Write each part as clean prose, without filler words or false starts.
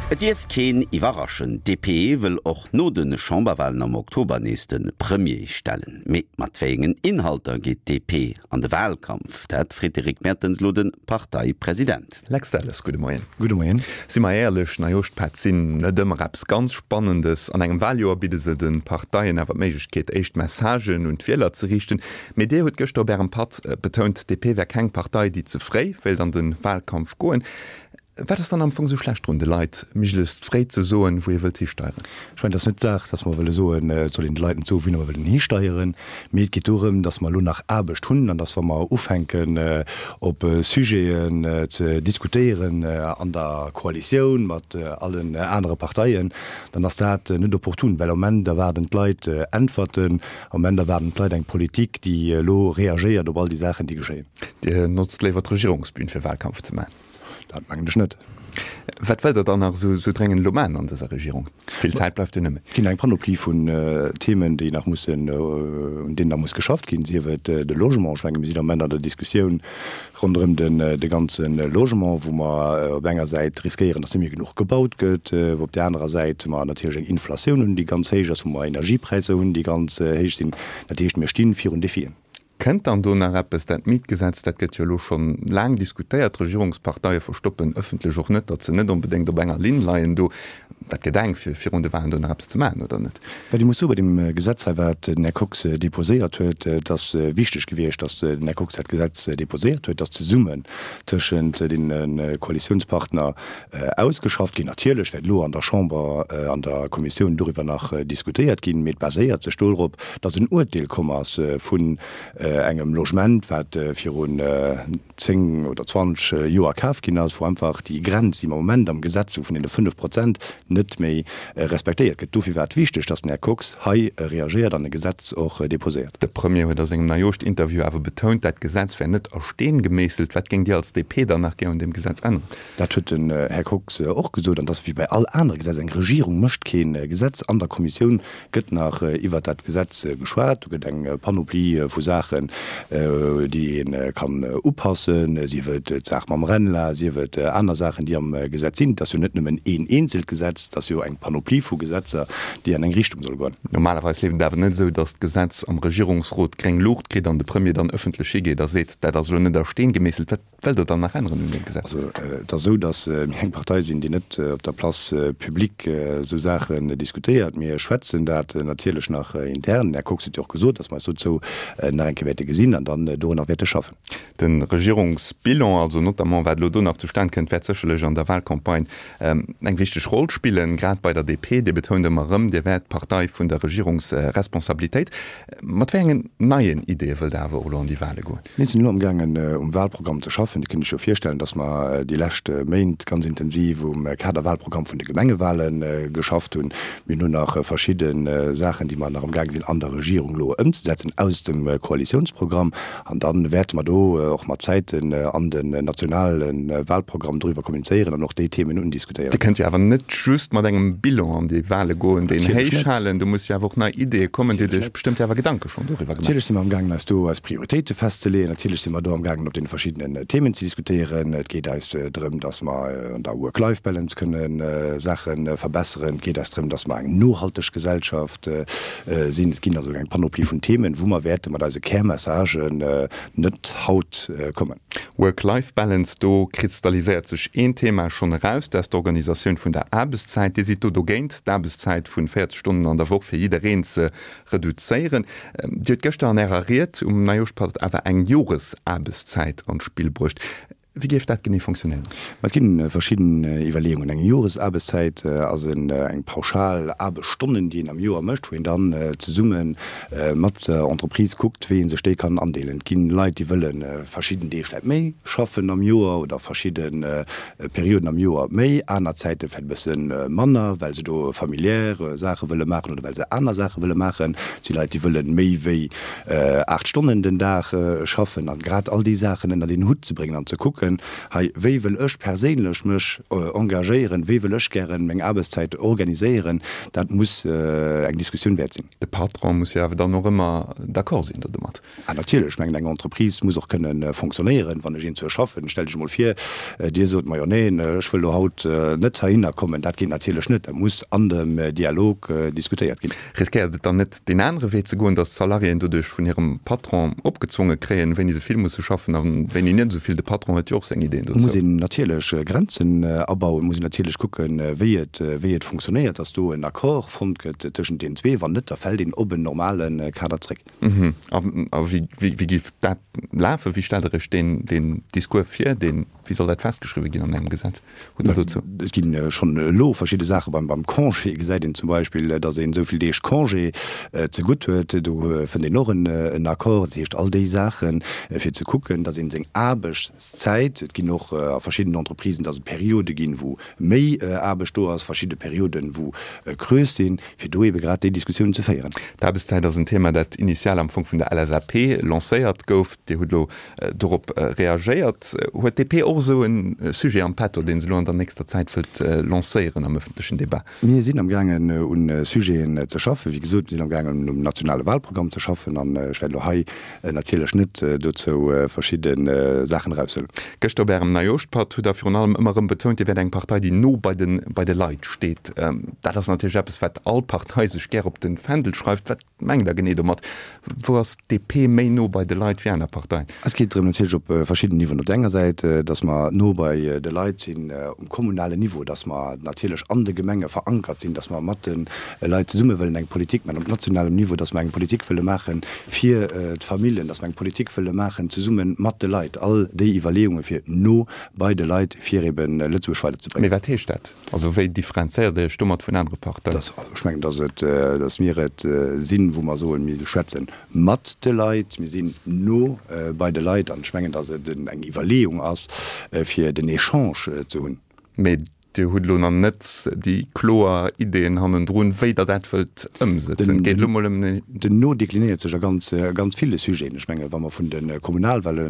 Et dierft keen iwwerraschen, d'DP wëll och no de Chamberwalen am Oktober nees de Premier stellen. Mee mat wéiengen Inhalter geet d'DP an de Walkampf? Dat freet de Rick Mertens elo de Parteipresident. Lex Delles, gudde Moien. Gudde Moien. Si mer éierlech, Neijooschpätt sinn net ëmmer eppes ganz Spannendes. An engem Waljoer bidde se de Parteien awer d'Méiglechkeet, éischt Messagen un d'Wieler ze riichten. Mee Dir hutt gëschter op Ärem Patt betount, d'DP wär keng Partei, déi ze fréi wéilt an de Walkampf goen. Wat ass dann am Fong esou schlecht drun, de Leit méiglechst fréi ze soen, wou ee wëllt histeieren? Ech mengen, et ass net d'Saach, datt mer wëlle soen, et soll een de Leit net soen, wouhinner mer wëllen histeieren, mee et geet dorëm, datt mer elo nach Aarbecht hunn an datt, wa mer ufänken, op Sujeten ze diskutéieren an der Koalitioun mat allen anere Parteien, dann ass dat net opportun, well am Moment erwaarden d'Leit Äntwerten, am Moment erwaarden d'Leit eng Politik, déi elo reagéiert op all déi Saachen, déi geschéien. Dir notzt léiwer d'Regierungsbün, fir Wahlkampf ze maachen? Dat mengen ech net. Wat wëllt Der dann nach esou dréngend elo maachen an dëser Regierung? Vill Zäit bleift jo net méi. Et ginn eng Panoplie vun Themen, déi nach mussen, un deenen nach muss geschafft ginn, sief et de Logement. Ech menge mir sinn am Moment an der Diskussioun ronderëm de ganze Logement, wou mer op enger Säit riskéieren, datt net méi genuch gebaut gëtt, wou op där anerer Säit mer natierlech eng Inflatioun hunn, déi ganz héich ass, wou mer Energiepräisser hunn, déi ganz héich sinn. Dat heescht, mir sti virun Defien. Kënnt dann do nach eppes? Dat Mietgesetz, dat gëtt jo elo scho laang diskutéiert. D'Regierungsparteie verstoppen ëffentlech och net, datt se net onbedéngt op enger Linn leien do. Dat gëtt enk, fir virun de Wahlen do nach eppes ze maachen, oder net? Wat ee muss soen, bei deem Gesetz hei, wat den Här Kox déposéiert huet, et ass wichteg gewiescht, datt den Här Kox dat Gesetz déposéiert huet, datt zesummen tëschent deene Koalitiounspartner ausgeschafft ginn. Natierlech wäert elo an der Chamber, an der Kommissioun doriwwer nach diskutéiert ginn, mee et baséiert sech dorop, dass en Uerteel komm ass vun engem Logement, wat virun 10 oder 20 Joer kaf ginn ass, wou einfach déi Grenz, déi mer am Moment am Gesetz hu vun deene 5 Prozent, net méi respektéiert gëtt. Dofir war et wichteg, dass den Här Kox hei reagéiert an e Gesetz och déposéiert. De Premier huet a sengem Neijooschtinterview awer betount, dat Gesetz wär net a Steen gemeesselt. Wat géingt Dir als DP dann nach gär un deem Gesetz änneren? Dat huet den Här Kox och gesot. An et ass wéi bei all anere Gesetz, Eng Regierung mécht kee Gesetz. An der Kommissioun gëtt nach iwwert dat Gesetz geschwat. Do gëtt eng Panoplie vu Saachen, déi ee kann upassen, sief et d'Saach mam RENLA, sief et aner Saachen, déi am Gesetz sinn. Et ass jo net nëmmen een eenzelt Gesetz, et ass jo eng Panoplie vu Gesetzer, déi an eng Richtung solle goen. Normalerweis leeft et awer net esou, datt d'Gesetz am Regierungsrot gréng Luucht kritt an de Premier dann ëffentlech higeet a seet, dat ass elo net a Steen gemeesselt. Wat Wëllt Der dann nach änneren un deem Gesetz? Also, et ass esou, datt mir eng Partei sinn, déi net op der Place publique esou Saachen diskutéiert. Mir schwätzen dat natierlech nach intern. Den Här Kox huet jo och gesot, datt mer eis dozou nach eng Kéier wäerte gesinn an dann dorunner wäerte schaffen. De Regierungsbilan, also notamment wat elo do nach zustan kënnt, wäert sécherlech an der Wahlcampagne eng wichteg Roll spillen, grad bei der DP. Dir betount ëmmer erëm, Dir wäert d'Partei vun der Regierungsresponsabilitéit. Mat wéi engen neien Ideeë wëllt Der awer och elo an déi Wahle goen? Mir sinn elo amgaangen um Wahlprogramm ze schaffen. Dir kënnt Iech jo virstellen, dass mer déi lescht Méint ganz intensiv um Kaderwahlprogramm vun de Gemengewahle geschafft hunn. Mir hunn elo nach verschidde Saachen, déi mer nach amgaange sinn an der Regierung elo ëmzesetzen aus dem Koalitiounsprogramm. An da wäerte mer do och mat Zäiten an den nationale Wahlprogramm doriwwer kommunizéieren an och déi Themen undiskutéieren. Dir kënnt jo awer net just mat engem Bilan an déi Wahle goen, deen héich halen. Do musse jo awer och nei Ideeë kommen. Dir hutt Iech bestëmmt jo awer Gedanke schonn doriwwer gemaach. Natierlech si mer amgaangen, eis do eis Prioritéite festzeleeën. Natierlech si mer do amgaangen, op deene verschiddenen Themen ze diskutéieren. Et geet eis drëm, datt mer an der Work-Life-Balance kënne Saache verbesseren. Et geet eis drëm, datt mer eng nohalteg Gesellschaft sinn. Et ginn also eng Panoplie vun Themen, wou mer wäerte mat eise Kärmessagen net haut kommen. Work-Life-Balance, do kristalliséiert sech een Thema schonn eraus, dat ass d'Organisatioun vun der Aarbechtszäit. Dir sidd do dogéint, d'Aarbechtszäit vun 40 Stonnen an der Woch fir jiddereen ze reduzéieren. Dir hutt gëschter an Ärer Ried um Neijooschpatt awer eng Joresaarbechtszäit an d'Spill bruecht. Wéi géif dat genee fonctionnéieren? Ma et ginn verschidden Iwwerleeungen. Eng Joresaarbechtszäit ass eng pauschal Aarbechtsstonnen, déi een am Joer mécht, wou een dann zesumme mat der Entreprise kuckt, wéi ee sech déi kann andeelen. Et ginn Leit, déi wëlle verschidden Deeg vläicht méi schaffen am Joer oder verschidde Perioden am Joer méi, aner Zäite vläicht e bësse manner, well se do familiär Saache wëlle maachen oder well se aner Saache wëlle maachen. Et si Leit, déi wëlle méi wéi 8 Stonnen den Dag schaffen an grad all déi Saachen ënnert een Hutt ze bréngen an ze kucken. kucken, hei, wéi wëll ech perséinlech mech engagéieren, wéi wëll ech gären meng Aarbechtszäit organiséieren, dat muss eng Diskussioun wäert sinn. De Patron muss jo awer dann och ëmmer d'accord sinn do domat. Ah natierlech, ech mengen eng Entreprise muss och kënnen fonctionnéieren. Wann ech eenzuer schaffen, stellt Iech emol vir, Dir sot, majo neen, ech wëll elo haut net heihinner kommen. Dat geet natierlech net, dat muss an dem Dialog diskutéiert ginn. Riskéiert et dann net deen anere Wee ze goen, datt d'Salariéen doduerch vun hirem Patron opgezwonge kréien, wéini se vill musse schaffen a wéini net esou vill? De Patron huet jo och seng Ideen dozou. Muss een natierlech Grenzen abauen, muss een natierlech kucken, wéi et, wéi et fonctionnéiert, datt do en Accord fonnt gëtt tëschent deenen zwee. Wann net, da fält een op en normale Kader zréck. A wéi, wéi géif dat lafen? Wéi stellt Der Iech deen, deen Discours vir? Deen, wéi soll dat festgeschriwwe ginn an engem Gesetz? Hutt Der dozou? Et gi schonn elo verschidde Saache. Beim, beim Congé gesäit een zum Beispill, datt een esou vill Deeg Congé zegutt huet. Do fënnt een och en, en Accord. Dat heescht, all déi Saachen, fir ze kucken, datt een seng Aarbechtszäit, et ginn och a verschiddenen Entreprisen, datt et Periode ginn, wou méi Aarbecht do ass, verschidde Perioden, wou Creuse sinn, fir do ebe grad déi Diskussiounen ze féieren. D'Aarbechtszäit ass en Thema, dat initial am Fong vun der LSAP lancéiert gouf. Dir hutt elo dorop reagéiert. Huet d'DP och esou e Sujet am Petto, dee se elo an der nächster Zäit wëllt lancéieren am ëffentlechen Debat? Mir sinn am gaangen un Sujeten ze schaffen. Wéi gesot, mir sinn am gaangen um nationale Wahlprogramm ze schaffen an ech wäert elo hei natierlech net dozou verschidde Saachen eraushuelen. Gëschter op Ärem Neijooschpatt hutt Der virun allem ëmmer erëm betount, Dir wäert eng Partei, déi no bei de bei de Leit steet. Dat ass natierlech eppes, wat all Partei sech gär op de Fändel schreift. Wat mengt Der genee domat? Wou ass d'DP méi no bei de Leit wéi aner Parteien? Es geet drëm natierlech op verschidden Niveauen. Op der enger Säit, datt mer no bei de Leit sinn um kommunalen Niveau, datt mer natierlech an de Gemenge verankert sinn, datt mer mat de Leit zesumme wëllen eng Politik maachen op nationalem Niveau, datt mer eng Politik wëlle maache fir d'Familljen, datt mer eng Politik wëlle maachen zesumme mat de Leit, all déi Iwwerleeunge fir no bei de Leit, fir eben Lëtzebuerg weiderzebréngen. Mee wat heescht dat? Also wéi differenzéiert Dir Iech domat vun anere Parteien? Ech mengen, datt et, datt mir et sinn, wou mer soen, mir schwätze mat de Leit, mir sinn no bei de Leit. An ech mengen, datt et eng Iwwerleeung ass, fir den Echange ze hunn. Mee Dir hutt elo nach net déi kloer Ideeën hannendrun, wéi Der dat wëllt ëmsëtzen. Et geet elo mol ëm. Den No deklinéiert sech a ganz, ganz ville Sujeten. Ech menge wa mer vun de Kommunalwale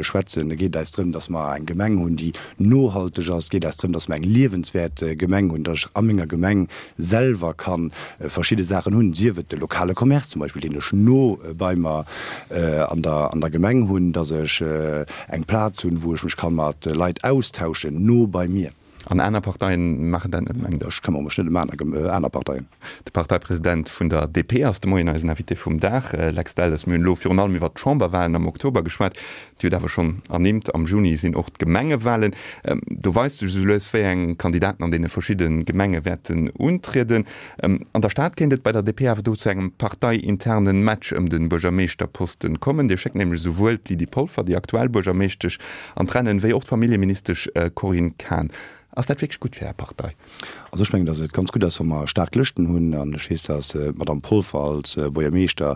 schwätzen, da geet et eis drëm, datt mer eng Gemeng hunn, déi nohalteg ass. Et geet eis drëm, datt mer eng liewenswäert Gemeng hunn, datt ech a menger Gemeng selwer ka verschidde Saachen hunn, sief et de lokale Commerce zum Beispill, deen ech no bei mer an der, an der Gemeng hunn, datt ech eng Plaz hunn, wou ech mech ka mat Leit austauschen, no bei mir. An aner Parteien maachen dat net, mengt Der? Ech këmmere mech net ëm aner Parteien. De Parteipresident vun der DP ass de Moien eisen Invité vum Dag. Lex Delles, mir hunn elo virun allem iwwert d'Chamberwahlen am Oktober geschwat. Dir hutt awer schonn ernimmt, am Juni sinn och d'Gemengewahlen. Do weist sech esou lues, wéi eng Kandidaten an deene verschidde Gemenge wäerten untrieden. An der Stad kéint et bei der DP awer do zu engem parteiinternen Match ëm de Buergermeeschterposten kommen. Dir schéckt nämlech esouwuel d'Lydie Polfer, déi aktuell Buergermeeschtesch, an d'Rennen, wéi och d'Familljeministesch Corinne Cahen. Ass dat wierklech gutt fir Är Partei? Also ech mengen, datt et ganz gutt ass, wa mer staark Lëschten hunn. An ech weess, datt d'Madame Polfer als Buergermeeschter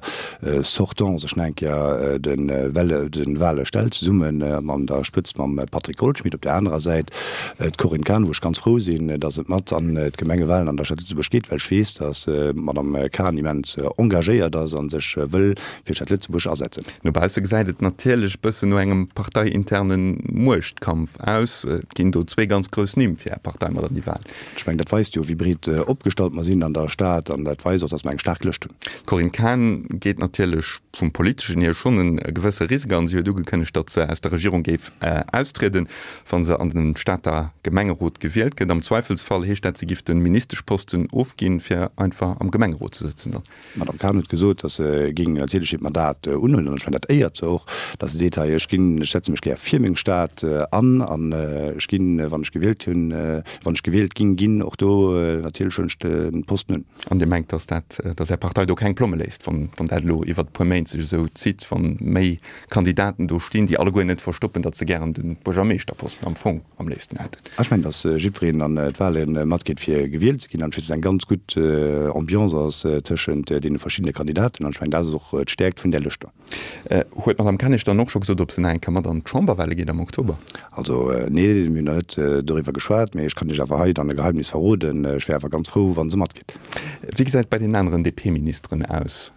sortant sech nach eng Kéier de Wale stellt, zesummen an der Spëtzt mam Patrick Goldschmidt. Op där anerer Säit D'Corinne Cahen, wou ech ganz frou sinn, datt et mat an d'Gemengewalen an der Stad Lëtzebuerg geet, well ech weess, datt d'Madame Cahen immens engagéiert ass a sech wëll fir d'Stad Lëtzebuerg asetzen. No bausse gesäit et natierlech bëssen no engem parteiinterne Muechtkampf aus. Et ginn do zwee ganz grouss Nimm fir Är Partei mat an déi Walen. Ech mengen, dat weist jo, wéi breet opgestallt mer sinn an der Stad an dat weist och, datt mer eng staark Lëscht hunn. D'Corinne Cahen geet natierlech vum Politeschen hier schonn e gewësse Risk an. Si huet ugekënnegt, datt se aus der Regierung géif austrieden, wa se an den Stater Gemengerot gewielt gëtt. Am Zweifelsfall heescht dat, si giff de Ministeschposten ofginn, fir einfach am Gemengerot ze sëtzen dann. D'Madame Cahen huet gesot, datt se géing natierlech hiert Mandat unhuelen, an ech mengen, dat éiert se och, datt se seet, hei, ech ginn, ech setze mech gär fir meng Stad an, an ech ginn, wann ech gewielt hunn, wann ech gewielt ging ginn, och do natierlech huelen ech de Posten un. An Dir mengt, datt dat, datt Är Partei do keng Plomme léisst, wann, wann dat elo iwwert e puer Méint sech esou zitt, wann méi Kandidaten do stinn, déi alleguer net verstoppen, datt se gären de Buergermeeschterposten am Fong am léifsten hätten. Ech mengen, datt jiddwereen an d'Wahle matgeet, fir gewielt ze ginn, an ech weess, datt eng ganz gutt Ambiance ass tëschent deene verschiddene Kandidaten, an ech mengen, dat ass och d'Stäerkt vun där Lëscht do. Huet d'Madame Kennig dann och scho gesot, ob se nach eng Kéier mat an d'Chamberwahle geet am Oktober? Also, nee, mir hunn nach net doriwwer geschwat, mee ech kann Iech awer hei dann e Geheimnis verroden, Ech wär awer ganz frou, wa se matgeet. Wéi gesäit et bei den aneren DP-Ministeren aus?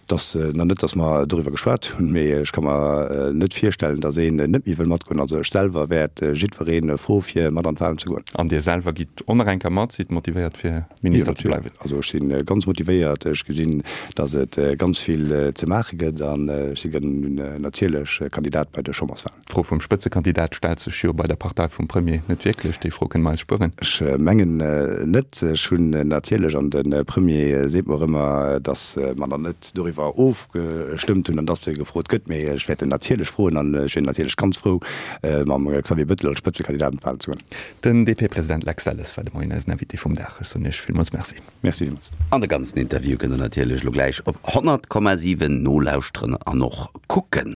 Dass nach net, dass mer doriwwer geschwat hunn, mee ech ka mer net virstellen, dass een net méi wëll matgoen. Also ech selwer wäert jiddweree froe fir mat an d'Wahlen ze goen. An Dir selwer gitt och nach eng Kéier mat? Sidd motivéiert fir Minister ze bleiwen? Also ech si ganz motivéiert. Ech gesinn, dass et ganz vill ze maache gëtt an ech si natierlech Kandidat bei de Chamberswahlen. D'Fro vum Spëtzekandidat stellt sech jo bei der Partei vum Premier net wierklech. Déi Fro kënne mer eis spueren. Ech mengen net. Ech hunn natierlech, an de Premier seet mer ëmmer, datt mer nach net doriwwer ofgestëmmt hunn an datt e gefrot gëtt. Mee ech wäert en natierlech froen an ech wier natierlech ganz frou, mam Xavier Bettel als Spëtzekandidat an d'Wahlen ze goen. Den DP-President Lex Delles war de Moien eisen Invité vum Dag. Ech soen Iech villmools Merci. Merci villmools. An de ganzen Interview kënnt der natierlech elo gläich op 100,7 nolauschteren an och kucken.